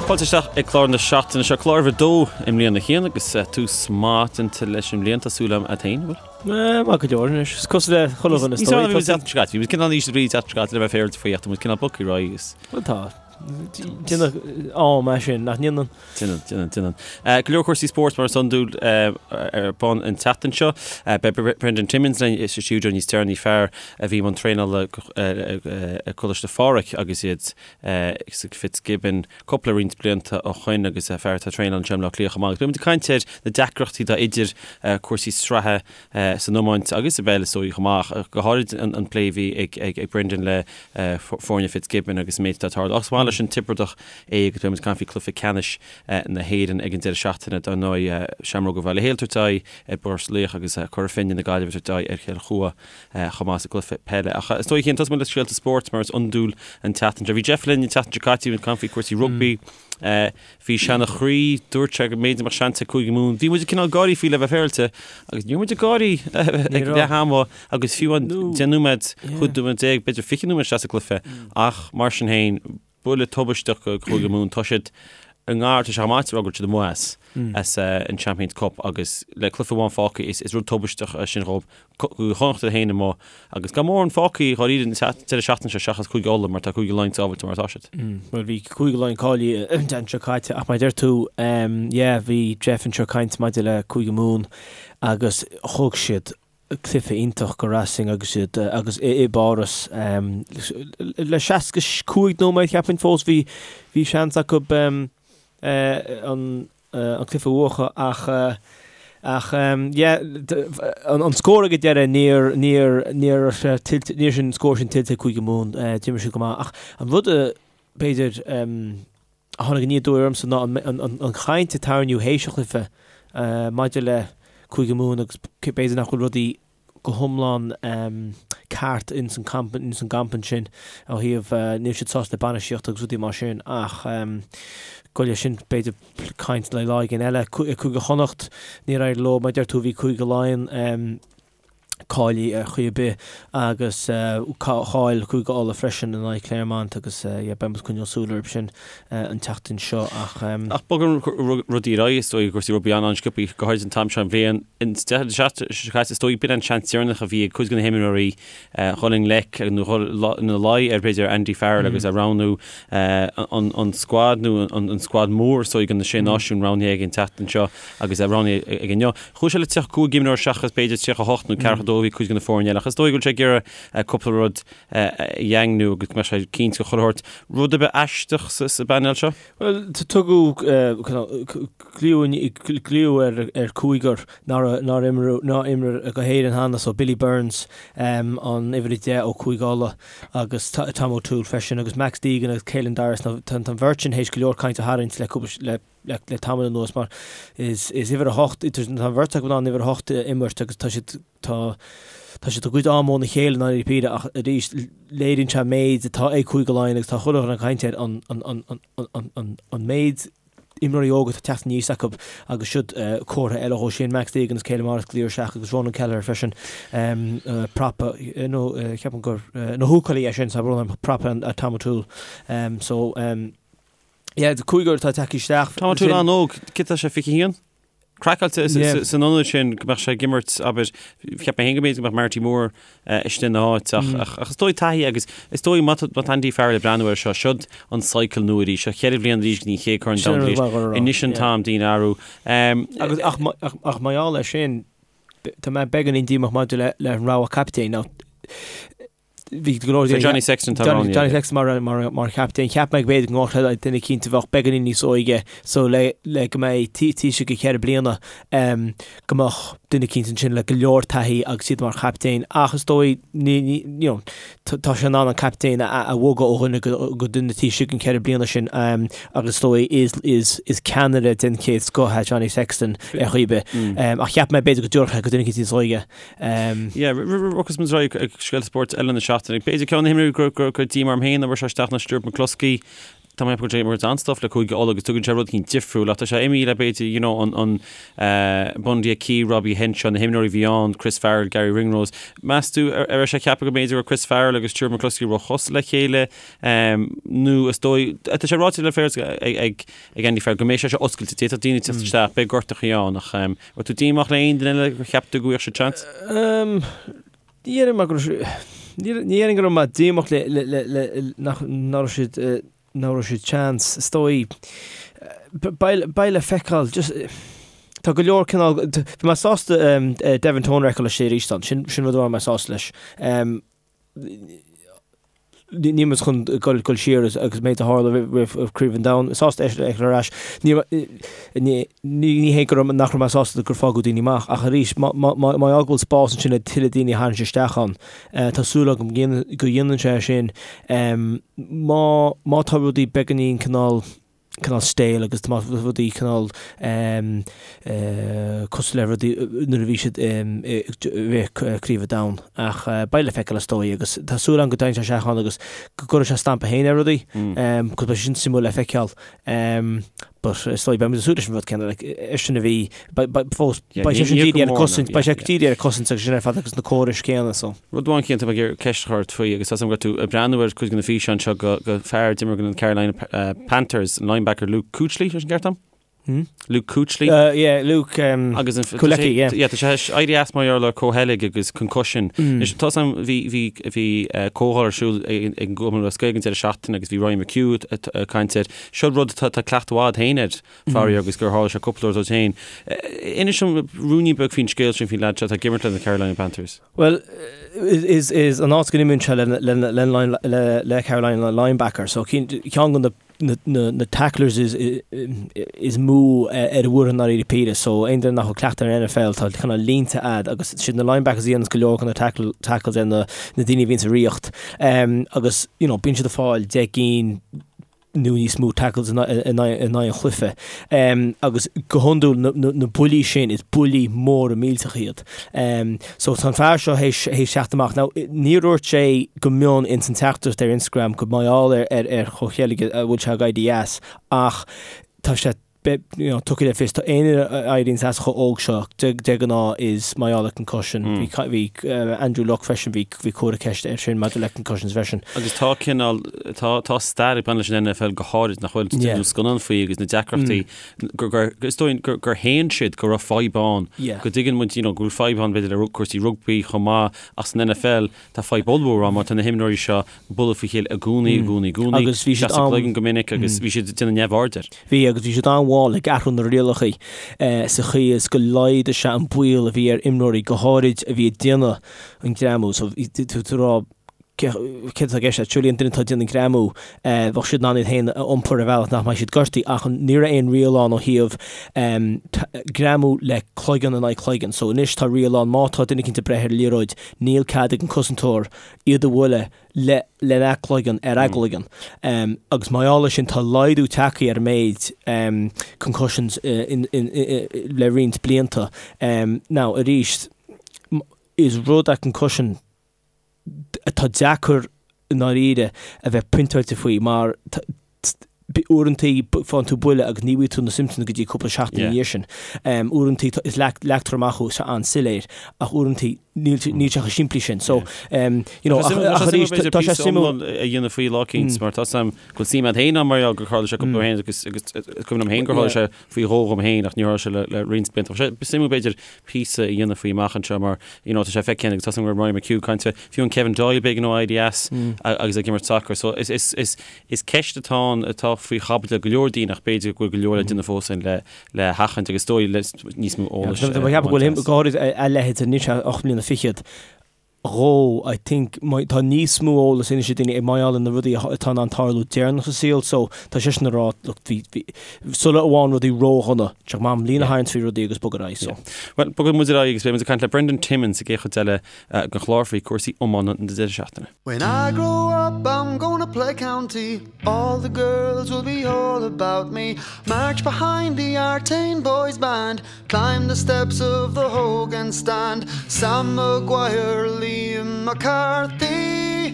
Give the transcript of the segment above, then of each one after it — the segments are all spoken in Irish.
Fáilte isteach ag clár na seachtaine seo, clár uimhir a dó i mbliana a Chian agus tús maith déanta leis an mbliain, tá súil agam a't féin, an bhfuil? Maith go leor anois. Is cosúil le chuile dhuine is dóigh. Bhí muid bhí muid cineál íseal brí an tseachtain seo caite le bheith féaráilte faoi ach tá muid cineál bogtha ar aghaidh agus. Bhuel tá. Déanann am é sin, nach ndéanann? Déanann, déanann, déanann. Go leor cúrsaí spóirt mar is iondúil ar bun an tseachtain seo. Beidh Brendan Timmins linn sa stiúideo níos deireanaí, fear a bhí i mbun traenála ag Coláiste Phádraig agus iad sa Fitzgibbon cúpla roinnt blianta ó shoin agus fear atá ag traenáil anseo i mBleá Cliath chomh maith. Agus beidh muid ag caint ar na deacrachtaí atá idir cúrsaí sraithe san iomáint agus i bpeil is dóigh chomh maith, ach go háirid an plé a bhí ag Brendan le foirne Fitzgibbon agus an méid atá ag tarlú. Ach is maith leis an Tiobradach é agus beidh muid ag caint faoi chluiche ceannais na hÉireann ag an deireadh seachtaine dar ndóigh, Seamróga Bhaile Héil ag tabhairt aghaidh ar Phort Laoich agus Cora Finne na Gaillimhe ag tabhairt aghaidh ar Chill Chua chomh maith sa gcluiche peile. Ach is dóigh, a Chian, tosóidh muid le scéalta spóirt mar is iondúil an tseachtain seo. Bhí Jeff linn an tseachtain seo caite, bhí muid ag caint faoi chúrsaí rugbaí. Bhí sé ina chroí, dúirt sé go mb'fhéidir go mbeadh seans ag Cúige Mumhan. Bhí muid ag cineál gáirí faoi le bheith féaráilte agus ní raibh muid ag gáirí ag leath ama agus fiú an 10 nóiméad, 15 nóiméad, b'fhéidir 20 nóiméad isteach sa gcluiche ach mar sin féin, Buille tubaisteach do Chúige Mumhan. Tá siad i ngar, tá sé chomh maith le rá go bhfuil siad amuigh as, as an Champions Cup agus le cluiche amháin fágtha is, is rud tubaisteach é sin dhóibh. Cúige Chonnacht iad féin amuigh agus gan mórán fágtha dháiríre an deireadh seachtaine seo seachas Cúige Uladh mar tá Cúige Laighean sábháilte mar atá siad. Bhuel bhí Cúige Laighean cáilithe an tseachtain seo caite ach mar a deir tú, yeah, bhí Jeff anseo ag caint maidir le Cúige Mumhan agus thug siad cluiche iontach go Racing agus iad agus i bPáras le 65 nóiméad cheapfainn fós bhí bhí seans acu an an cluiche a bhuachan ach ach yeah an scór ag an deireadh níor níor níor tuillte níor sin an scór sin tuillte ag Cúige Mumhan d'imir siad go maith ach an rud a b'fhéidir a tháinig aniar aduaidh ormsa ná an chaint a tarraingíodh théis an chluiche maidir le Cúige Mumhan agus b'fhéidir nach bhfuil rudaí go hiomlán ceart ins an gcampa ansin ó thaobh níl siad sásta le bainistíocht agus rudaí mar sin ach goile sin b'fhéidir caint le lá éigin eile. Cúige Chonnacht níor éirigh leo mar a deir tú bhí Cúige Laighean cáilithe ar chaoi ar bith agus chaill Cúige Uladh freisin in aghaidh Clermont agus yeah beidh muid ag coinneáil súil orthu sin an tseachtain seo ach. Ach bogann rudaí ar aghaidh is dóigh cúrsaí rugbaí an-sciobtha go háirid an t-am seo den bhliain. An deireadh seachtaine seo caite is dóigh b'in an seans deireanach a bhí ag cuid de na himreoirí dhul i ngleic nó dhul ina luí ar b'fhéidir Andy Farrell agus a roghnú an scuad nó an scuad mór is dóigh do na Sé Náisiún roghnaithe aige an tseachtain seo agus roghnaithe aige inniu. Chuaigh sé le 35 imreoir seachas b'fhéidir 38 nó 42 a bhí cuid de na foirne eile ach is dóigh go bhfuil sé ag iarraidh cúpla rud a dhaingniú agus go mbeadh sé cinnte de chuile shórt. Rud ar bith aisteach sa bpainéal seo? Bhuel, tugadh glaoch ar chúigear nár imir do Éirinn cheana, so Billy Burns, an uimhir 10 ó Chúige Uladh agus Tom O'Toole freisin agus Max Deegan agus Caelan Doris. Tá an bheirt sin théis go leor cainte a tharraingt le le tamall anuas mar is uimhir 8 tá an bheirt acu in ann uimhir 8 a imirt agus tá siad tá tá siad i gcuid am óna chéile i ndáiríre píre ach arís léiríonn sé an méid atá ag Cúige Laighean agus tá chuile dhuine ag caint air an an an an an an an méid imreoirí óga atá ag teacht aníos acu agus siod comhartha eile dhó sin Max Deegan agus Caelan Morris glaoch isteach agus Ronan Kelleher freisin prapa nó ceapaim gur nó húcálaí é sin tá brón orm prapa Tom O'Toole so Yeah, cúigear atá tagtha isteach. Tom O'Toole an-óg, cé tá sé 21? Craiceáilte san ionad sin go mbeadh sé ag imirt, abair, cheap mé féin go mb'fhéidir go mbeadh Marty Moore istigh ina áit ach ach is dóigh taithí agus is dóigh má tá Andy Farrell ag breathnú air seo, siod an cycle nua arís, seo cheithre bhliain arís go dtí an chéad Chorn Domhanda arís. Anois an t-am daoine a athrú. Agus ach ach mar gheall air sin, tá mé beagáinín díomách maidir le le an rogha captaen. Now, bhí go leor So Johnny Sexton tá roghnaithe Johnny Sexton mar mar mar chaptaen. Cheap mé go b'fhéidir go ngabhfadh sé duine eicínt a bheadh beagáinín níos óige so le le go mbeidh taoiseach go ceithre bliana um, go mbeadh duine eicínt ansin le go leor taithí agus iad mar chaptaen ach is dóigh ní ní you know, tá sé in ann an captaen a a bhogadh ó dhuine go go duine taoiseach an ceithre bliana sin um, agus is dóigh is is is ceannaire den chéad scoth é Johnny Sexton ar chaoi ar bith. Um, ach cheap mé b'fhéidir go dtabharfadh sé go duine eicínt níos óige. Yeah, agus muid ag scéalta spóirt eile na seachtaine. B'fhéidir ceann de na himreoirí go raibh díomá orm féin nach bhfuair sé isteach ná Stuart McCloskey. Tá mé ag ceapadh go bhfuil an-stuif le Cúige Uladh agus tugann sé rud éicint difriúil ach tá sé imithe le b'fhéidir you know an an Bundee Aki, Robbie Henshaw, na himreoirí a bhí ann, Chris Farrell, Garry Ringrose. Meas tú ar raibh sé ceaptha go mb'fhéidir go raibh Chris Farrell agus Stuart McCloskey róchosúil le chéile nó is dóigh tá sé ráite le féar ag ag Andy Farrell go mbeidh sé seo oscailte, d'fhéadfadh daoine teacht isteach, beidh gortachaí ann ach raibh tú díomách le aon duine eile gur cheap tú go bhfaigheadh siad seans? Ní déarfainn mar go raibh ní déarfainn go raibh mé díomách le le le le nach nach raibh siad nach raibh siad seans. Is dóigh beidh beidh le feiceáil just tá go leor cineál bhí mé sásta Devin Toner a fheiceáil istigh arís ann sin sin rud a raibh mé sásta leis. Níl muid chun dul siar agus méid a tharla roimh Craobh an Domhain. Sásta é a fheiceáil ar ais. Ní hé go raibh nach raibh mé sásta gur fágadh daoine amach ach arís má fhág go bhfuil spás ansin le tuilleadh daoine a tharraingt isteach ann, tá súil agam go dhéanann sé sin. Má tá rudaí beagáinín cineál cineál stale agus tá rudaí cineál cosúil le rudaí nuair a bhí siad i rith Craobh an Domhain ach beidh le feiceáil is dóigh agus tá súil agam go dtagann sé isteach ann agus go gcuirfidh sé stampa féin ar rudaí cos beidh sin suimiúil le feiceáil but is dóigh beidh muid ag súil leis an rud céanna like eisean a bhí fós beidh sé sin dírithe ar an cosaint beidh sé dírithe ar an cosaint agus sin ar fad agus na córais céanna so. Rud amháin cinnte tá mé ag iarraidh ceist a chur ort faoi agus tá a fhios agam go raibh tú ag breathnú ar cuid de na físeáin seo de fear a d'imir do na Carolina Panthers, an linebacker Luke Kuechly, sé sin ceart agam? Hmm? Luke Kuechly. Yeah, Luke um, agus an Kuechly, yeah. Yeah, tá sé éirí as mar gheall ar comhcheilg agus concussion. Mm. Tá a fhios agam bhí bhí bhí comhdháil ar siúl ag an gCumann Lúthchleas Gael ag an deireadh seachtaine agus bhí Ryan McHugh ag caint air. Seo rud atá cleachtadh agat féin air. faraor agus gur tharla sé cúpla uair duit féin. Inis dom ruainnín beag faoin scéal sin faoin leaid seo atá ag imirt le na Carolina Panthers. Bhuel, is is an áit go n-imríonn sé le le le le Carolina linebacker, so ceann de na na na tacklers is is mó ar an bhfoireann i ndáiríre píre, so aon duine nach bhfuil cleachtadh ar an NFL tá cineál línte a'd agus siad na linebackers a dhéananns go leor de na tackle tackles ar na na daoine a bhíonn sa riocht agus you know bíonn siad ag fáil 10 gcinn nó níos mó tackles in aghaidh an chluiche. Agus go hiondúil na buillí sin, is buillí móra millteacha iad. So tá an fear seo théis teacht amach. Now níor dhúirt sé go mion ins an teachtaireacht ar Instagram go mar gheall ar ar chomhcheilg a bhfuil sé ag éirí as ach tá sé you know, tugtha le fios, tá aon duine a éiríonns as chomh óg seo, de de ghnáth is mar gheall ar concussion. Bhí bhí Andrew Luck freisin, bhí bhí comhartha ceiste air sin maidir le concussions freisin. Agus tá cineál, tá tá stair ag baint leis an NFL go háirid nach bhfuil, Yeah. déanadh scannán faoi agus na deacrachtaí gur gur is dóigh gur gur shéan siad go raibh fadhb ann. Yeah. Go dtuigeann muid you know, go bhfuil fadhb ann b'fhéidir le cúrsaí rugbaí chomh maith ach san NFL Tá fadhb ollmhór ann mar tá na himreoirí seo ag bualadh faoi chéile i gcónaí, i gcónaí, i gcónaí. Agus bhí siad an. gcloigeann go minic agus bhí siad ag déanamh neamhaird air. Bhí, agus bhí siad an-mhall ag athrú na rialacha sa chaoi is go laghdaigh sé an baol a bhí ar imreoirí, go háirid a bhí ag déanamh an greamú. So bhí tú ag rá céard atá i gceist leat? Surely an duine atá ag déanamh an greamú, bheadh siad in ann iad féin a iompar ar bhealach nach mbeidh siad gortaithe ach ní raibh aon riail ann ó thaobh greamú le cloigeann in aghaidh cloigeann. So anois tá riail ann má tá duine eicínt ag breith ar an liathróid Níl cead ag an cosantóir iad a bhualadh le lena gcloigeann ar a gcloigeann. Agus mar gheall air sin tá laghdú tagtha ar an méid concussions le roinnt blianta. Now arís, is rud é concussion atá deacair i ndáiríre a bheith pointeáilte faoi mar uaireantaí faigheann tú buille agus ní bhfaighidh tú na symptoms go dtí cúpla seachtain ina dhiaidh sin. Uaireantaí is leagtar amach thú an-soiléir ach uaireantaí níl níl sé chomh simplí sin. So you know ach arís tá sé suimiúil a dhéanamh faoi lá eicínt mar tá a fhios agam go bhfuil suim agat féin ann mar gheall gur tharla sé cúpla uair féin agus agus is cuimhin liom féin gur tharla sé faoi dhó dhom féin ach níor tharla sé le le roinnt blianta. Tá sé suimiúil b'fhéidir píosa a dhéanamh faoi amach anseo mar you know tá sé feicthe agus tá a fhios agam go raibh Ryan McHugh ag caint fé fiú an Kevin Doyle b'éigean dó éirí as agus ag imirt sacair. So is is is is ceist atá ann atá faoi chaibidil ag go leor daoine ach b'fhéidir go bhfuil go leor le déanamh fós ann le le hathchaint agus is dóigh le níos mó eolais. Tá mé ag ceapadh go bhfuil go háirid a leithéid anois 8 mbliana fichead dhó I think tá níos mó eolas anois ag daoine mar gheall ar na rudaí atá in ann tarlú deireanach sa saol so tá seisean ag rá look bhí bhí sula bhfaigheann rudaí ródhona tá sé go maith líne a tharraingt faoi rudaí agus bog ar aghaidh so. Bhuel, bogfaidh muid ar aghaidh agus beidh muid ag caint le Brendan Timmins sa gcéad chuid eile den chlár faoi cúrsaí iomána na deireadh seachtaine. When I grow up I'm gonna play county All the girls will be all about me March behind the Artane boys band Climb the steps of the Hogan stand Sam Maguire, Liam McCarthy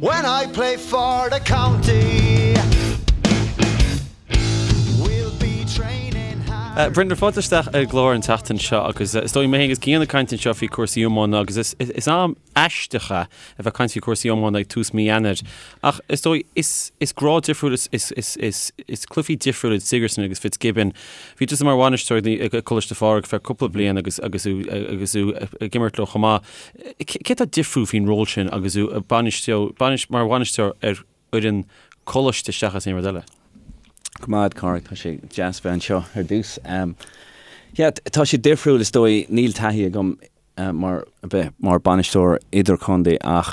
When I play for the county. Brendan, fáilte isteach ar an gclár an tseachtain seo agus is dóigh mé féin agus Cian ag caint anseo faoi cúrsaí iomána agus is, is am aisteach é a bheith ag caint faoi cúrsaí iomána ag tús mí Eanáir. Ach is dóigh is, is grád difriúil, is, is, is, is, is cluichí difriúil iad Sigerson agus Fitzgibbon. Bhí tusa mar bhainisteoir ag Coláiste Phádraig feadh cúpla bliain agus, agus tú, agus tú ag imirt leo chomh maith. Cé atá difriúil faoin ról sin agus tú ag bainistiú, bainis, mar bhainisteoir ar fhoireann coláiste seachas aon rud eile? Go maith, Cormac, tá sé deas bheith anseo ar dtús. Yeah, tá sé difriúil is dóigh, níl taithí agam mar bheith mar bainisteoir idirchontae ach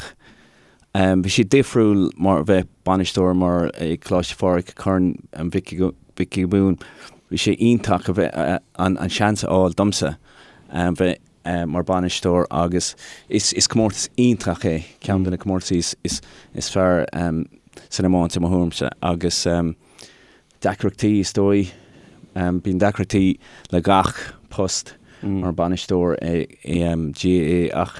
bhí sé difriúil mar bheith bainisteoir mar ag Coláiste Phádraig Corn Mhic Giobúin. Bhí sé iontach a bheith an seans a fháil domsa bheith mar bainisteoir agus is comórtas iontach é, ceann de na comórtaisí is fearr san iomáint i mo thuairimse agus deacrachtaí is dóigh, bíonn deacrachtaí le gach post mar bainisteoir i GAA ach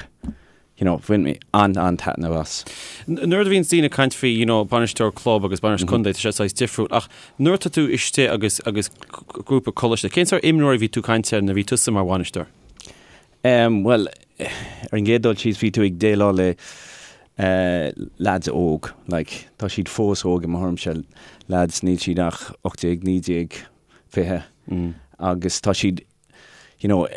you know, bhain mé an-an-taitneamh as. Nuair a bhíonn daoine ag caint faoi, you know, bainisteoir club agus bainisteoir contae, tá sé saghas difriúil, ach nuair atá tú istigh agus, agus grúpa coláiste, cén sórt imreoirí a bhí tú ag caint air nuair a bhí tusa mar bhainisteoir? Um, bhuel, ar an gcéad dul síos bhí tú ag déileáil le uh, lads óg, like, tá siad fós óg i mo thuairimse, lads níl siad ach 18, 19, 20, mm. agus tá siad you know,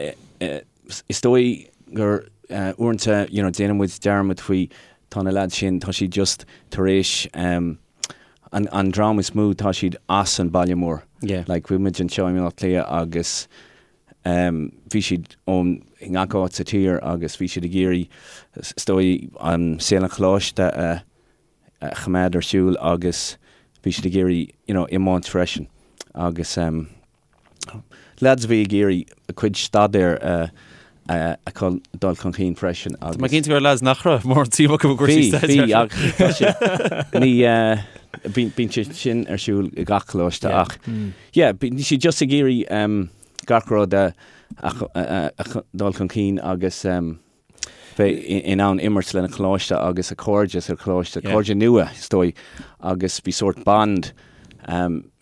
is dóigh gur uaireanta, you know, déanann muid dearmad faoi, tá na lads sin, tá siad just tar éis um, an, an dream is mó, tá siad as an baile mór. Yeah. Like, bhí muid anseo i mBaile Átha Cliath agus um, bhí siad ón ngach áit sa tír agus bhí siad ag iarraidh, is dóigh, an saol an choláiste a, a choimeád ar siúl agus bhí siad ag iarraidh, you know, iomáint freisin agus um, Lads a bhí ag iarraidh a cuid staidéir a dul chun cinn freisin agus. Tá mé cinnte go raibh lads nach raibh mórán suim acu i gcúrsaí staidéir. Bhí, ach tá sé, ní, bíonn sé sin ar siúl i gach coláiste ach yeah, bíonn siad just ag iarraidh gach rud a dul chun cinn agus. bheith in ann imirt lena choláiste agus a cairde sa choláiste, cairde nua is dóigh, agus bhí sórt bond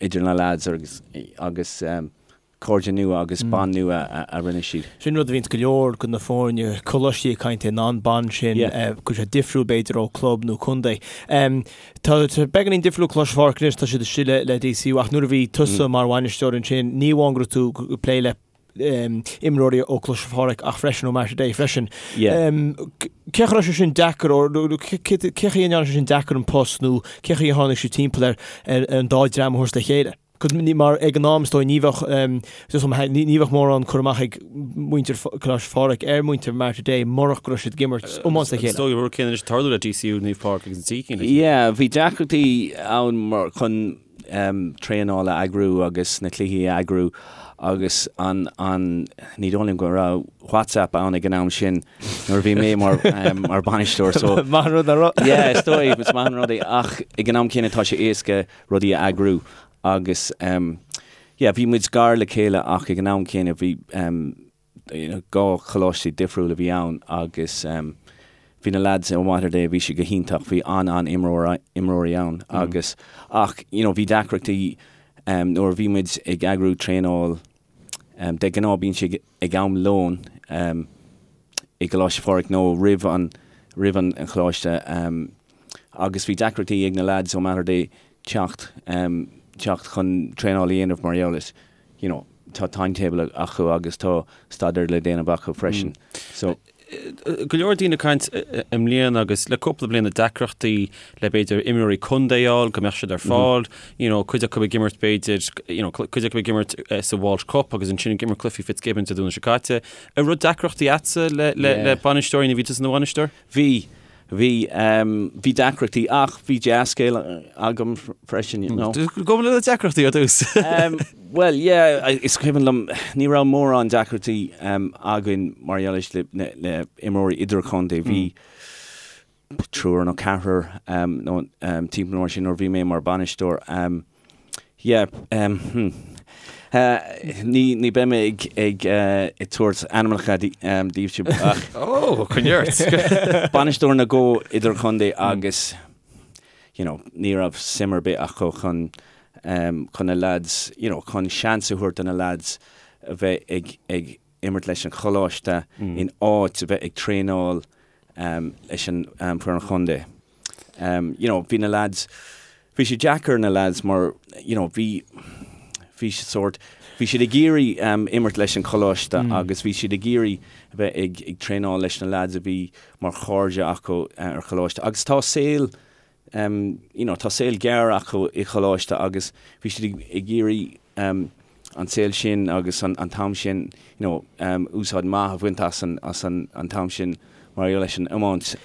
idir na lads agus agus cairde nua agus bond nua a rinne siad. Sin rud a bhíonns go leor de na foirne coláistí ag caint air ná an bond sin, go bhfuil sé difriúil b'fhéidir ó club nó contae. Tá sé beagáinín difriúil Coláiste Phádraig anois, tá siad istigh le DCU ach nuair a bhí tusa mar bhainisteoir ansin, ní amháin go raibh tú ag plé le imreoirí ó Coláiste Phádraig ach freisin ó Mater Dei freisin. Cé chaoi a raibh sé sin deacair nó cé chaoi a ndearna sé sin deacair an post nó cé chaoi a tháinig sibh timpeall ar an dá dream a thabhairt le chéile? Mar ag an am is dóigh ní bheadh ní bheadh mórán cur amach ag muintir Coláiste Phádraig ar muintir Mater Dei murach go raibh siad ag imirt iomáint le chéile. Is dóigh an rud céanna anois ag tarlú le DCU, Naomh Pádraig agus an Dícín. Yeah, bhí deacrachtaí ann mar chun traenáil a eagrú agus na cluichí a eagrú agus an, an, ní dóigh liom go raibh WhatsApp ann ag an am sin nuair a bhí mé mar, mar bainisteoir so. Maith an rud nach raibh. Yeah, is dóigh, is maith an rud é ach ag an am céanna tá sé éasca rudaí a eagrú agus yeah, bhí muid gar le chéile ach ag an am céanna bhí 2 choláistí difriúil a bhí ann agus bhí na lads ó Mater Dei, bhí siad go hiontach, bhí an-an-imreoir, imreoirí ann agus ach you know bhí deacrachtaí nuair a bhí muid ag eagrú traenáil, de ghnáth bíonn sé ag am lóin i gColáiste Phádraig nó roimh an, roimh an choláiste agus bhí deacrachtaí ag na lads ó Mater Dei teacht, teacht chun traenáil a dhéanamh mar gheall is you know, tá timetable acu agus tá staidéar le déanamh acu freisin. So. Go leor daoine ag caint i mbliana agus le cúpla bliain na deacrachtaí le b'fhéidir imreoirí contae a fháil, go mbeadh siad ar fáil, you know, cuid acu ag imirt b'fhéidir, you know, cuid acu ag imirt sa Walsh Cup agus ansin ag imirt cluichí Fitzgibbons Dé Domhnaigh seo caite. An raibh deacrachtaí agatsa le, le, le bainisteoirí nuair a bhí tusa ina bhainisteoir? Bhí. Bhí, bhí deacrachtaí ach bhí dea-scéal agam freisin, you know. Gabh le na deacrachtaí ar dtús. Bhuel, yeah, is cuimhin liom, ní raibh mórán deacrachtaí againn mar gheall le, le imreoirí idirchontae. Bhí triúr nó ceathrar nó timpeall mar sin nuair a bhí mé mar bhainisteoir. Yeah, hmm. Ní, ní beidh mé ag, ag, ag tabhairt ainmneacha daoibhse ach. Ó, coinnigh ort! Bainisteoir na dhá idirchontae agus, you know, ní raibh suim ar bith acu chun. chun na lads, you know, chun seans a thabhairt do na lads a bheith ag, ag imirt leis an choláiste in áit a bheith ag traenáil leis an foireann chontae. You know, bhí na lads, bhí sé deacair ar na lads mar, you know, bhí, bhí siad sórt, bhí siad ag iarraidh imirt leis an choláiste agus bhí siad ag iarraidh a bheith ag, ag traenáil leis na lads a bhí mar chairde acu ar choláiste agus tá saol, you know, tá saol gearr acu i choláiste agus bhí siad ag, ag iarraidh an saol sin agus an, an t-am sin, you know, úsáid maith a bhaint as an, as an, an t-am sin mar gheall leis an iomáint.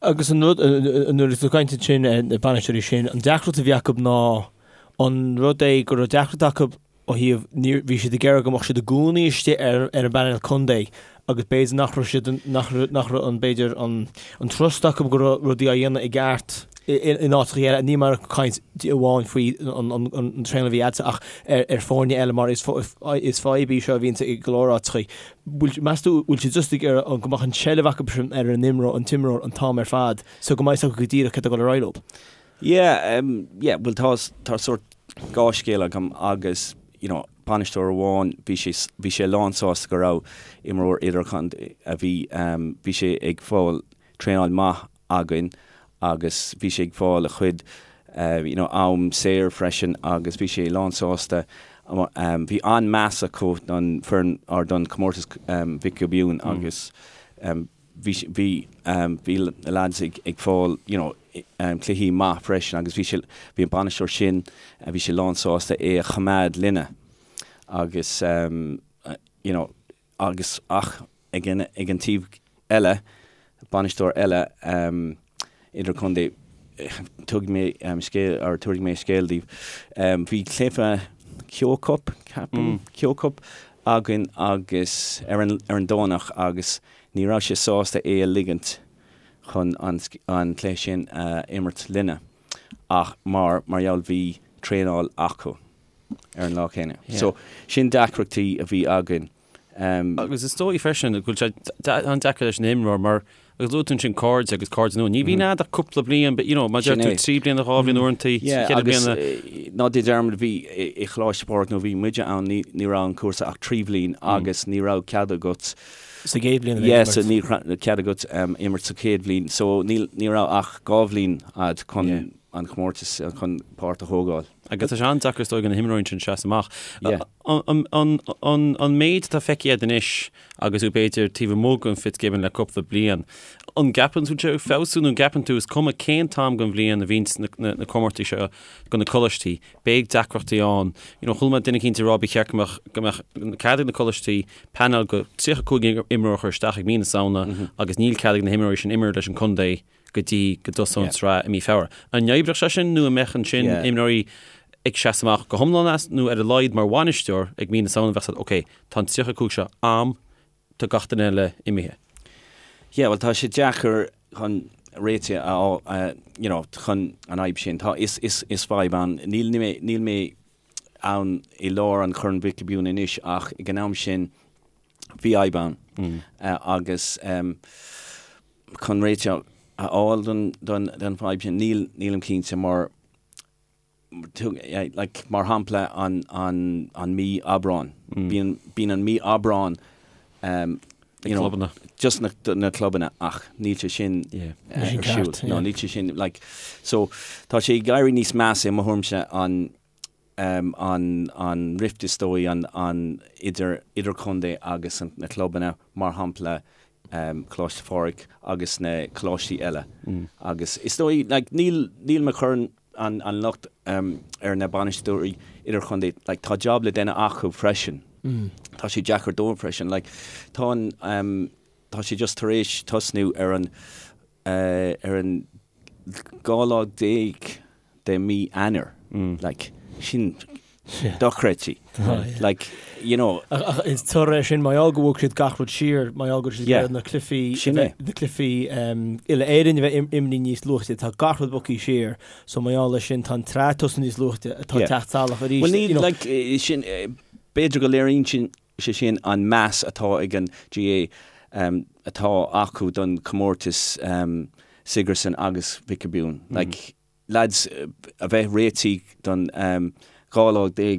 Agus an rud, nuair atá tú ag caint ansin ar na bainisteoirí sin, an deacracht a bhí acu ná an rud é go raibh deacracht acu ó thaobh, ní, bhí siad ag iarraidh go mbeadh siad i gcónaí istigh ar, ar an bpainéal contae agus b'fhéidir nach raibh siad, nach raibh, nach raibh an, b'fhéidir an, an trust acu go raibh rudaí á dhéanamh i gceart in áiteacha eile. Ní mar caint amháin faoi an, an, an traenáil a bhí agatsa ach ar, ar foirne eile mar is, is fadhb í seo a bhíonn i go leor áiteacha. Bhfuil, meas tú, bhfuil siad just ag iarraidh go mbeadh an tseilbh acu sin ar an imreoir, an t-imreoir an t-am ar fad so go mbeidh a fhios acu go díreach céard atá ag dul ar aghaidh leo? Yeah, um, yeah, bhuel tá, tá sórt dhá scéal agam agus, you know, bainisteoir amháin, bhí sé, bhí sé lán sásta go raibh imreoir idirchontae a bhí, um, bhí sé ag fáil traenáil maith againn agus bhí sé ag fáil a chuid you know am saor freisin agus bhí sé lán sásta. Bhí an-meas acu don foireann or don comórtas Mhic Giobúin agus bhí bhí bhí na lads ag ag fáil you know cluichí maith freisin agus bhí sé bhí an bainisteoir sin bhí sé lán sásta é a choimeád linne agus you know agus ach ag an ag an taobh eile, bainisteoir eile idirchontae, tabharfaidh mé scéal or tabharfaidh mé scéal daoibh. Bhí cluiche Kehoe Cup, ceapaim, Kehoe Cup againn agus ar an ar an Domhnach agus ní raibh sé sásta é a ligint chun an an cluiche sin a imirt linne ach mar mar gheall bhí traenáil acu. ar an lá céanna. So, sin deacrachtaí a bhí againn. Agus is dóigh freisin go bhfuil sé an-deacair leis an imreoir mar agus luaigh tú ansin cairde agus cairde nua. Ní bhíonn a'd ach cúpla bliain, but you know, mar deir tú trí bliana, dhá bhliain uaireanta, ceithre bliana. Ná déan dearmad bhí i Choláiste Phádraig nuair a bhí muide ann ní ní raibh an cúrsa ach trí bhliain agus ní raibh cead agat Sa gcéad bhliain a bheith ag imirt. Yeah, ní raibh cead agat imirt sa chéad bhliain. So ní ní raibh ach dhá bhliain a'd chun an chomórtas chun páirt a thógáil. Agus tá sé an-deacair is dóigh do na himreoirí sin seasamh amach. An méid atá feicthe agat anois agus tú b'fhéidir taobh amuigh den Fitzgibbon le cúpla bliain, an gceapann tú sé ag feabhsú nó an gceapann tú is cuma cén t-am den bhliain a bhíonns na comórtais seo do na coláistí, beidh deacrachtaí ann. You know, chuala mé duine eicínt ag rá ba cheart go mbeadh go mbeadh cead ag na coláistí painéal de 35 imreoir a chur isteach ag mí na Samhna agus níl cead ag na himreoirí sin imirt leis an contae go dtí go dtosóidh an tsraith i mí Feabhra. An n-oibreodh sé sin nó an mbeadh ansin imreoirí ag seasamh amach go hiomlán as nó ar a laghad mar bhainisteoir ag mí na Samhna bheadh siad ok, tá an 35 seo a'm, tá gach duine eile imithe. Yeah, bhuel tá sé deacair chun réiteach a fháil, you know, chun an fhadhb sin. Tá, is, is, is fadhb ann. Níl mé, níl mé ann i lár an Chorn Mhic Giobúin anois ach ag an am sin bhí fhadhb ann agus chun réiteach a fháil don don fhadhb sin níl nílim cinnte mar like mar shampla an an an mí Aibreán bíonn bíonn an mí Aibreán um, you know, clubanna. just na, na clubanna ach níl sé sin ar siúl. No, níl sé sin like so tá sé ag éirí níos measa i mo thuairimse an an an rift is dóigh an an idir idirchontae agus an na clubanna mar shampla Coláiste Phádraig agus na coláistí eile agus is dóigh like níl níl mé ag cur an an locht ar na bainisteoirí idirchontae like tá job le déanamh acu freisin tá sé deacair dóibh freisin like tá an tá sé just tar éis tosnú ar an ar an 12 lá de mí Eanáir like sin dochreidte like you know. Ach is toradh é sin mar gheall go bhog siad gach rud siar, mar gheall go raibh siad ag iarraidh na cluichí na cluichí uile-Éireann a bheith imithe níos luaithe, tá gach rud bogtha siar, so mar gheall leis sin tá an tsraith ag tosnú níos luaithe, atá ag teacht salach arís. Well níl like sin b'fhéidir go léiríonn sin sé sin an meas atá ag an GAA atá acu don chomórtas Sigerson agus Mhic Giobúin like. lads a bheith réitithe don 12 lá de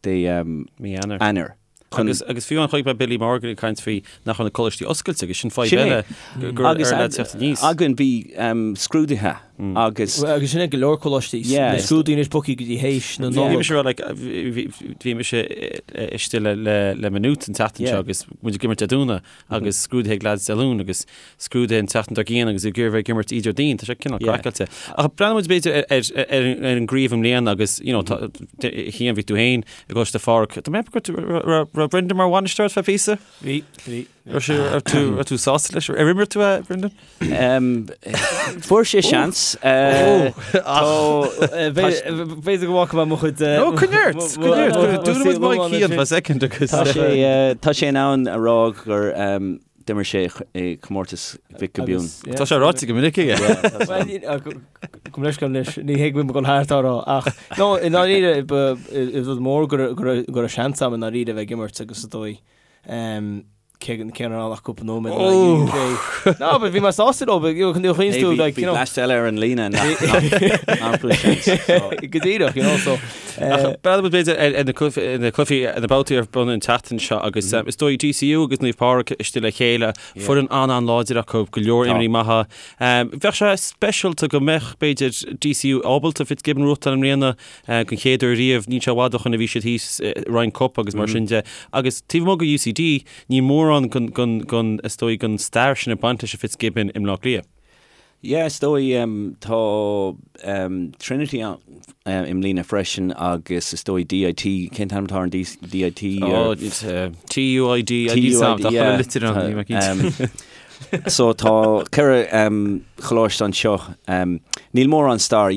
de Mí Eanáir. Eanáir. Chun Agus agus fiú amháin chonaic mé Billy Morgan ag caint faoi nach raibh na coláistí oscailte agus sin fadhb Sin é. eile gur ar Agus lads teacht aníos. againn bhí scrúduithe agus Agus sin é go leor coláistí. Yeah. Na scrúduithe anois bogtha go dtí théis na Bhí Nollag. mise rá like bhí mise istigh le le le Maynooth an tseachtain seo agus muid ag imirt Dé Domhnaigh agus scrúduithe ag lads Dé Luain agus scrúduithe an tseachtain dár gcionn agus ag iarraidh bheith ag imirt Déardaoin, tá sé cineál craiceáilte. Ach breathnaíonn muid b'fhéidir ar ar an gcraobh i mbliana agus you know tá Cian bhí tú féin i gColáiste Phádraig. Tá mé ag ceapadh go raibh Brendan mar bhainisteoir feadh píosa? Bhí, bhí. Raibh sé raibh tú raibh tú sásta leis? Ar imir tú é, Brendan? Fuair sé seans. B'fhéidir go bhfaca mé mo chuid. No, coinnigh ort, coinnigh ort. Dúnfaidh muid mic Cian for a second agus. Tá sé tá sé in ann a rá gur d'imir sé i comórtas Mhic Giobúin. Tá sé ráite go minic aige. Gabh mo leithscéal anois, ní hé go bhfuil mé ag dul thart á rá ach no, i ndáiríre ba rud mór go raibh seans agam i ndáiríre a bheith ag imirt agus is dóigh cé cé nach raibh ach cúpla nóiméad in aghaidh UK. No, but bhí mé sásta leo, but you know, chun Hey, tú bhí like, bhí you know. blast eile ar an líne nach nach fuair seans. So, Go díreach, you know, so. Ach breathnaíonn muid b'fhéidir ar ar na cluichí na cluichí na babhtaí ar bun an tseachtain seo agus is dóigh DCU agus Naomh Pádraig istigh le chéile, foireann an-an-láidir acu, go leor Tá. imreoirí maithe. Bheadh sé speisialta go mbeadh b'fhéidir DCU ábalta Fitzgibbon a bhuachtáil i mbliana don chéad uair riamh. Níl sé i bhfad ó shoin a bhí siad thíos i Ryan Cup agus mar sin de. Agus taobh amuigh de UCD, níl mórán den, is dóigh, den stair sin ag baint leis an Fitzgibbon i mBleá Cliath. Yeah, is dóigh tá Trinity ann i mbliana freisin agus is dóigh DIT, cén t-ainm atá ar an DIT? Oh, TUID, TUID, yeah. Litir ann, níl mé cinnte. So tá 4 choláiste anseo. Níl mórán stair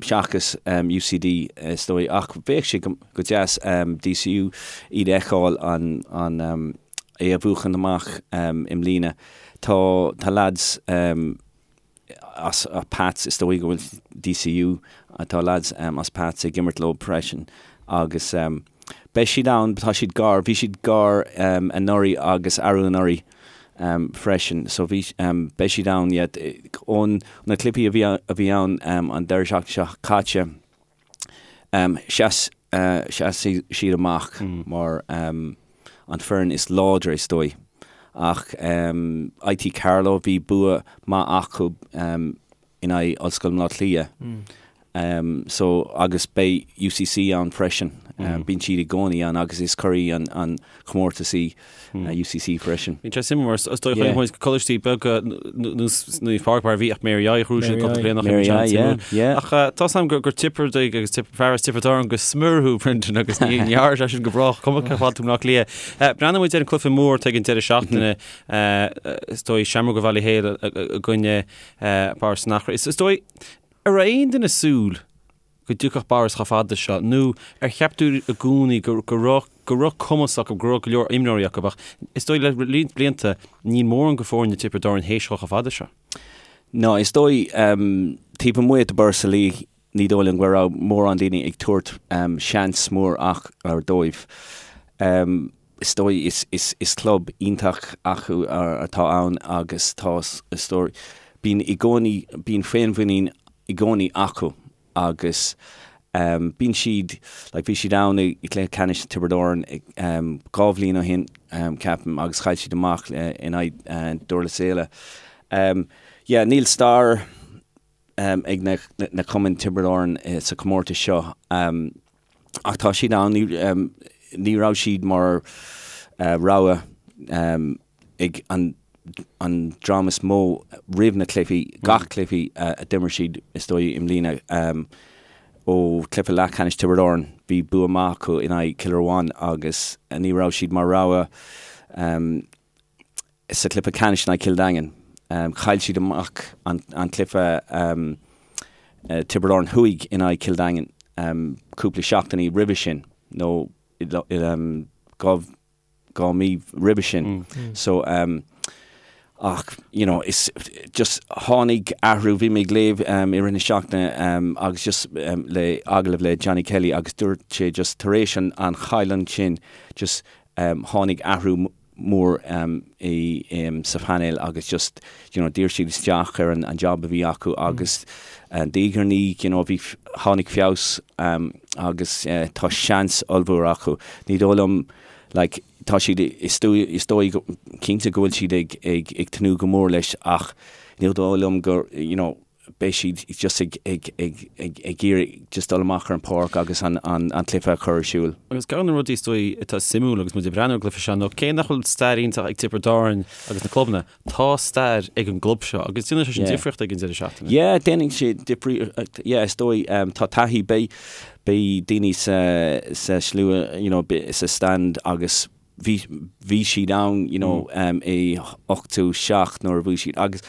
seachas UCD is dóigh ach bheadh sé go deas DCU iad a fheiceáil an é a bhuachan amach i mbliana. Tá tá lads as Pats is dóigh go bhfuil DCU tá lads as Pats ag imirt leo freisin agus beidh siad ann, tá siad gar, bhí siad gar anuraidh agus arú anuraidh freisin so bhí beidh siad ann yeah ón na cluichí a bhí a bhí ann an deireadh seachtaine seo caite sheas sheas siad amach mar an foireann is láidre is dóigh ach IT Carlow bhí bua maith acu in aghaidh Ollscoil Bhaile Átha Cliath. So agus beidh UCC ann freisin. Bíonn siad i gcónaí ann agus is curaidh an an chomórtas í UCC freisin. Bíonn sé suimiúil mar is dóigh chonaic muid coláistí beaga nós Naomh Pádraig mar a bhí ach Mary I ghnóthaigh siad cúpla bliain ó shin, Mary I, yeah, yeah. Ach tá 's agam gur Tiobradaigh agus fear as Tiobraid Árann go smior thú Brendan agus ní dhearna sé sin go brách cuma cé fad tú i mBleá Cliath. Breathnóidh muid ar an cluiche mór atá ag an deireadh seachtaine is dóigh Seamróga Bhaile Héil i gcoinne Borris in Achra. Is dóigh, An raibh aon duine ag súil go dtiocfadh Borris chomh fada seo nó ar cheap tú i gcónaí go raibh go raibh cumas acu, go raibh go leor imreoirí acu ach is dóigh le roinnt blianta níl mórán de foirne Tiobraid Árann théis dhul chomh fada seo. No, is dóigh, taobh amuigh de Borris-Ileigh ní dóigh liom go raibh mórán daoine ag tabhairt seans mór ach ar dóibh. Is dóigh is is is club iontach acu atá ann agus tá is dóigh bíonn i gcónaí bíonn féinmhuinín i gcónaí acu agus bíonn siad like bhí siad ann i gcluiche ceannais Tiobraid Árann 2 bhliain ó shin ceapaim agus chaill siad amach in aghaidh Durlas Éile. Yeah níl stair ag na na cumainn Tiobraid Árann sa chomórtas seo. Ach tá siad ann, ní raibh siad mar rogha ag an dream is mó roimh na cluichí, gach cluichí a d'imir siad is dóigh i mbliana. Ó chluiche leathcheannais Tiobraid Árann, bhí bua maith acu in aghaidh Cill Ruáin agus ní raibh siad mar rogha sa chluiche ceannais in aghaidh Chill Daingin. Chaill siad amach an cluiche Tiobraid Árann Thuaidh in aghaidh Chill Daingin cúpla seachtainí roimhe sin nó 2 mí roimhe sin. So ach you know is just tháinig athrú, bhí mé ag léamh i rith na seachtaine agus just le agallamh le Johnny Kelly agus dúirt sé just tar éis an chailliúint sin just tháinig athrú. mór i sa phainéal agus just you know d'iarr siad isteach ar an an job a bhí acu agus diaidh ar ndiaidh you know bhí tháinig feabhas agus tá seans ollmhór acu. Ní dóigh liom like tá siad is is dóigh cinnte go bhfuil siad ag ag ag tnúth go mór leis ach ní dóigh liom gur you know beidh siad just ag ag ag ag ag iarraidh just dul amach ar an pháirc agus an an an cluiche a chur ar siúl. Agus ceann de na rudaí is dóigh atá suimiúil agus muid ag breathnú ar an gcluiche seo ná cé nach bhfuil stair iontach ag Tiobraid Árann agus na clubanna, tá stair ag an gclub seo agus déanann sé sin difríocht ag an deireadh seachtaine. Yeah, déanann sé difríocht, yeah, is dóigh, tá taithí, beidh beidh daoine sa sa slua, you know, sa stand agus bhí bhí siad ann you know i 87 nuair a bhuaigh siad agus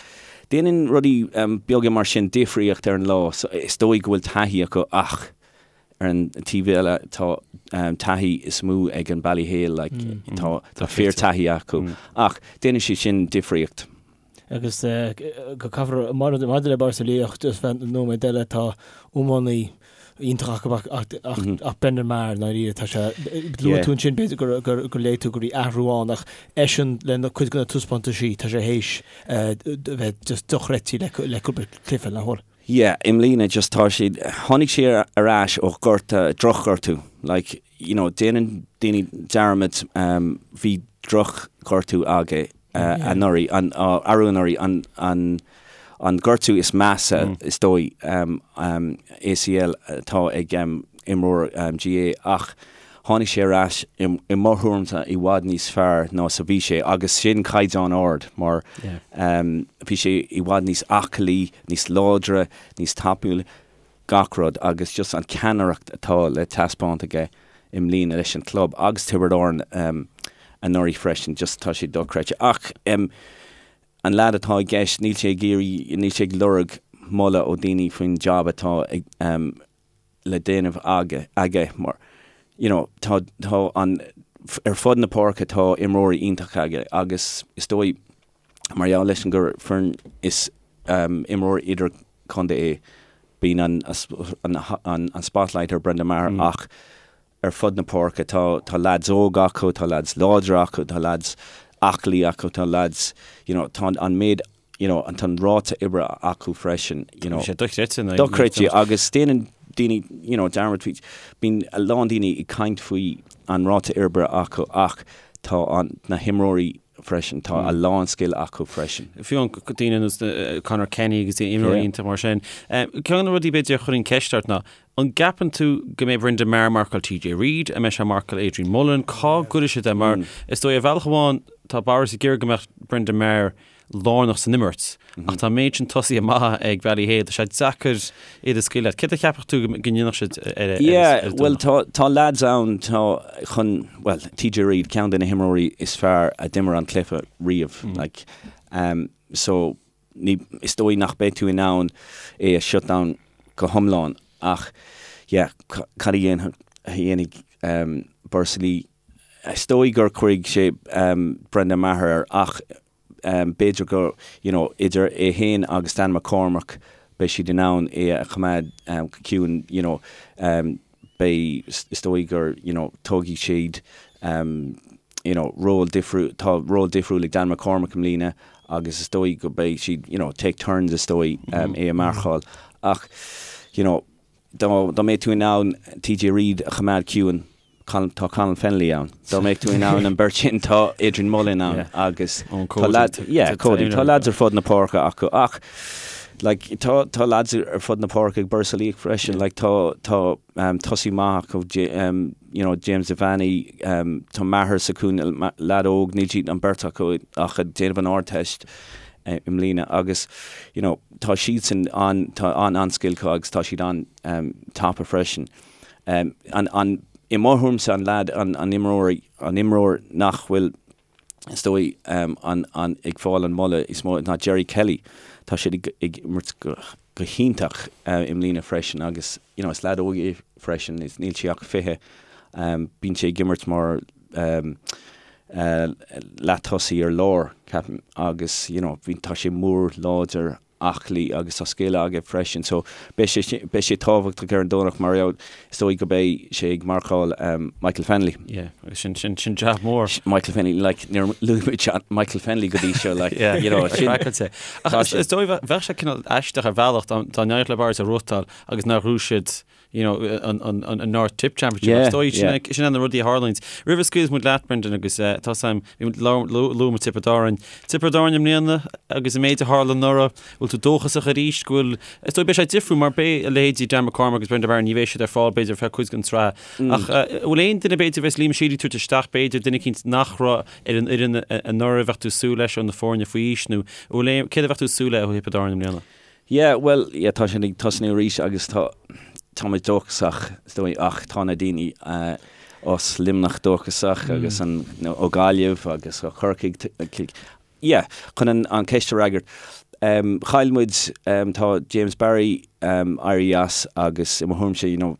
déanann rudaí beaga mar sin difríocht ar an lá so is dóigh go bhfuil taithí acu ach ar an taobh eile tá taithí is mó ag an Ballyhale like tá tá fíor taithí acu ach déanann sé sin difríocht. Agus go caithfear, maidir le Borris-Ileigh, just feadh nóiméad eile, tá iománaí iontach acu ach Brendan Maher, i ndáiríre, tá sé, luaigh tú ansin b'fhéidir gur léigh tú go raibh athrú ann ach eisean le cuid de na taispeántaisí, tá sé théis bheith just dochreidte le cúpla cluiche, nach bhfuil? Yeah, i mbliana just tá siad, tháinig sé ar ais ó ghortú, drochghortú, like, you know, déanann daoine dearmad, bhí drochghortú aige anuraidh, an, arú anuraidh, an, an, an gortú is measa is dóigh, ACL atá ag imreoir GAA ach tháinig sé ar ais i mo thuairimse i bhfad níos fearr ná is a bhí sé agus sin caighdeán ard mar bhí sé i bhfad níos aclaí, níos láidre, níos tapúla, gach rud agus just an ceannaireacht atá le taispeáint aige i mbliana leis an club agus Tiobraid Árann anuraidh freisin, just tá sé dochreidte. Ach an leaid atá i gceist, níl sé ag iarraidh, níl sé ag lorg moladh ó daoine faoin job atá ag le déanamh aige, aige mar you know tá, tá an, ar fud na páirce tá imreoirí iontacha aige agus is dóigh mar gheall leis an gur foireann is imreoir idir-chontae é, bíonn an, an, an, an spotlight ar Brendan Maher ach ar fud na páirce tá, tá leaids óga acu, tá leaids láidre acu, tá leaids aclaí acu, tá leaids, you know, tá an méid you know, an tá an ráta oibre acu freisin, you know. Tá sé dochreidte. Dochreidte agus déanann daoine, you know, dearmad faoi, bíonn a lán daoine ag caint faoi an ráta oibre acu ach tá an, na himreoirí freisin, tá a lán scil acu freisin. Fiú an daoine ar nós Conor Kenny agus imreoirí iontach mar sin. Ceann de na rudaí b'fhéidir a chuirfinn ceist ort ná, an gceapann tú go mbeidh Brendan Maher ag marcáil TJ Reid, an mbeidh sé ag marcáil Adrian Mullen, cá gcuirfidh siad é mar is dóigh ar bhealach amháin tá Borris ag iarraidh go mbeadh Brendan Maher lárnach san imirt ach tá an méid sin tosaithe maithe ag Ballyhale, tá sé deacair iad a scaoileadh. Céard a cheapfadh tú go ndéanfadh siad ar an Yeah, bhuel tá tá lads ann tá chun, bhuel TJ Reid, ceann de na himreoirí is fearr a d'imir an cluiche riamh, like um, so ní, is dóigh nach mbeidh tú in ann é a shut down go hiomlán ach yeah, cad a dhéanfaidh, a dhéanfaidh um, Borris-Ileigh Is dóigh gur cuirfidh sé Brendan Maher air ach b'fhéidir go, you know, idir é féin agus Dan McCormack beidh siad in ann é a choimeád go ciúin, you know, beidh, is dóigh gur, you know, tógfaidh siad, you know, ról difriúil, tá ról difriúil ag Dan McCormack i mbliana agus is dóigh go beidh siad, you know, take turns is dóigh é a mharcáil ach, you know, dá mbeadh tú in ann TJ Reid a choimeád ciúin, tá Colin Fennelly ann. Dá mbeadh tú in ann an beirt sin, tá Adrian Mullen ann agus tá lads, yeah, Cody, tá lads ar fud na páirce acu ach like tá tá lads ar fud na páirce ag Borris-Ileigh freisin, like tá tá um, tosaí maith acu, um, you know, James Devaney, um, tá Maher sa chúinne, lad óg, níl siad an beirt acu ach ag déanamh an Ardteist i mbliana agus you know, tá siadsan an tá an an-scil acu agus tá siad an um, tapa freisin. Um, an, an, I mo thuairimse an leaid, an, an imreoir, an imreoir nach bhfuil is dóigh um, an, an, ag fáil an moladh is mó ná Jerry Kelly. Tá sé ag, ag imirt go, go hiontach uh, i mbliana freisin agus you know, is leaid óg é freisin, is níl sé ach 20. Um, bíonn sé ag imirt mar um, uh, leath-tosaí ar lár, ceapaim, agus you know, bhí, tá sé mór láidir. aclaí agus tá scil aige freisin so beidh sé beidh sé tábhachtach ar an Domhnach mar is dóigh go beidh sé ag marcáil Michael Fennelly. Yeah, agus sin sin sin jab mór. Michael Fennelly like níor luaigh muid Michael Fennelly go dtí seo like Yeah, you know sin craiceáilte. Ach is is dóigh bheadh sé cineál aisteach ar bhealach dá dá n-éireodh le Barrs a ghnóthachtáil agus nár ghnóthaigh siad you know, an, an, an, an North Tipp Championship. Yeah, Is dóigh sin yeah. é- sin é na rudaí a tharlaíonns. Roimh a scaoilfidh muid leat, Brendan, agus eh, tá sam, luaigh muid Tiobraid Árann. Tiobraid Árann i mbliana agus an méid a tharla anuraidh, bhfuil tú dóchasach arís go bhfuil, is dóigh beidh sé difriúil mar beidh a leithéidí Dan McCormack agus Brendan Barron, ní bheidh siad ar fáil b'fhéidir ar feadh cuid den tsraith. Mm. Ach eh, bhfuil aon duine b'fhéidir bheas Liam Sheedy tabhairt isteach b'fhéidir duine eicínt nach raibh ar an fhoireann eh, anuraidh a bheadh tú ag súil leis ó na foirne faoi aois nó bhfuil aon, céard a bheadh tú ag súil le ó Thiobraid Árann i mbliana? Yeah, bhuel, yeah, tá sin ag tosnú arís agus tá, tá muid dóchasach, is dóigh, ach tá na daoine as Luimneach dóchasach agus an, nó ó Gaillimh agus ó Chorcaigh, yeah, chun an, an ceist a fhreagairt, um, chaill muid, um, tá James Barry, um, éirithe as agus i mo thuairimse, you know,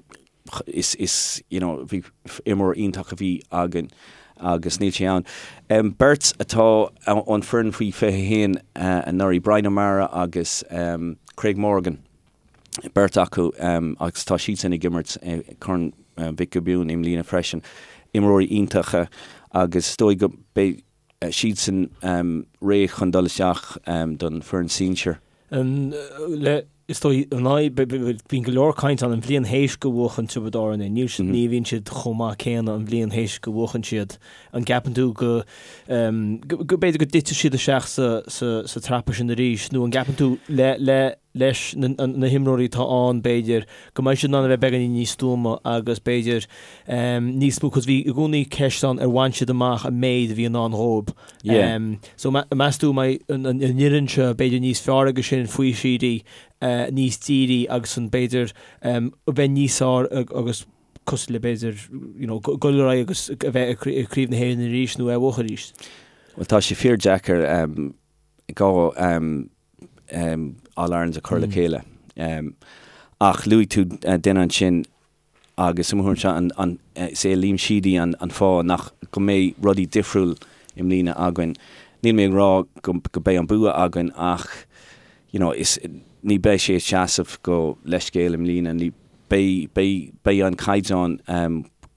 is, is, you know, bhí imreoir iontach a bhí againn agus níl sé ann. Beirt atá ón foireann faoi 21 anuraidh, Brian O'Meara agus Craig Morgan, beirt acu agus tá siadsan ag imirt i Corn Mhic Giobúin i mbliana freisin. Imreoirí iontacha agus is dóigh go beidh siadsan réidh chun dul isteach don foireann sinsir. Le, is dóigh, an fhadhb, bíonn go leor caint ann an bhliain théis go bhuachan Tiobraid Árann é, níl siad, ní bhíonn siad chomh maith céanna an bhliain théis go bhuachan siad. An gceapann tú go, go b'fhéidir go dtitfidh siad isteach sa, sa, sa trapa sin arís nó an gceapann tú le, le, leis na, na himreoirí atá ann b'fhéidir go mbeidh siad in ann a bheith beagáinín níos stuama agus b'fhéidir níos mó, cos bhí i gcónaí ceist ann ar bhain siad amach an méid a bhí i ndán dhóibh. Yeah. So meas tú an mbeidh an fhoireann seo b'fhéidir níos fearr aige sin faoi Sheedy, níos dírí agus an b'fhéidir a bheith níos fearr agus cosúil le b'fhéidir you know dul ar aghaidh agus a bheith i gCraobh na hÉireann arís nó é a bhuachan arís? Bhuel tá sé fíor deacair go All Irelands a chur le chéile. Ach luaigh tú duine ansin agus i mo thuairimse an is é Liam Sheedy an fáth nach go mbeidh rudaí difriúil i mbliana againn. Níl mé ag rá go go beidh an bua againn ach you know is ní beidh sé ag seasamh go leithscéal i mbliana ní beidh beidh beidh an caighdeán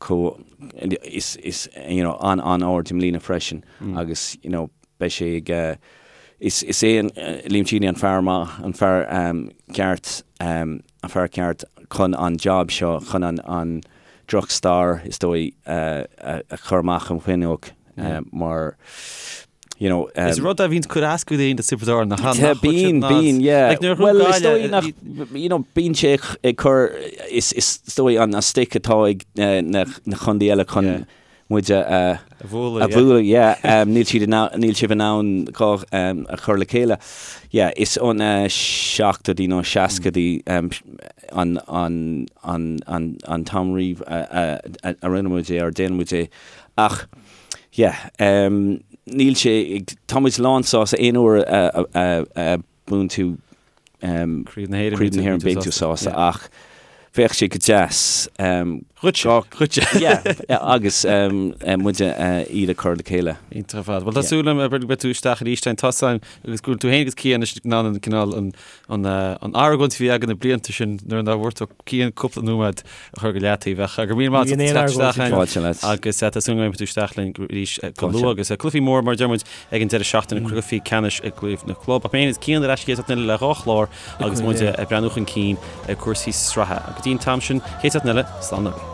chomh is is you know an an-ard i mbliana freisin agus you know beidh sé ag is is é Liam Sheedy an fear maith, an fear ceart, an fear ceart chun an job seo, chun an an droch-stair is dóigh a chur amach an fuinneog mar you know. Is rud é a bhíonn ag cur as go daoine do Tiobraid Árann nach nach Bíonn, bíonn, yeah. Bhuel is dóigh nach, you know, bíonn sé ag cur, is is dóigh an stick atá ag na na contaetha eile chun muid a bhualadh, yeah. Níl siad in ann, níl sibh in ann dhá a chur le chéile. Yeah, is ó na seachtóidí nó seascaidí an an an an an t-am riamh a a rinne muid é, or déanann muid é. Ach, yeah, níl sé ag, tá muid lán sásta aon uair a a a buann tú Craobh na hÉireann, Craobh na hÉireann, bíonn tú sásta ach bheadh sé go deas. Dhuitse, dhuitse. Yeah, agus muide iad a chur le chéile. Iontach ar fad. Bhuel tá súil agam go mbeidh tú isteach arís tá a fhios agam agus go bhfuil tú féin agus Cian anois in ann an cineál an an argóint a bhí againn na blianta sin nuair nár bhfuair tú Cian cúpla nóiméad a chur go leataobh ach go raibh míle maith agat as teacht isteach Fáilte leat. agus tá súil agam go mbeidh tú isteach linn arís go luath agus cluichí mór mar a deir muid ag an deireadh seachtaine cluichí ceannais i gcraobh na gclub. Ach mé féin is Cian ar ais an chéad seachtain eile le dhá chlár agus muid ag breathnú chun cinn ar cúrsaí sraithe. Go dtí an t-am sin, chéad seachtain eile, slán agaibh.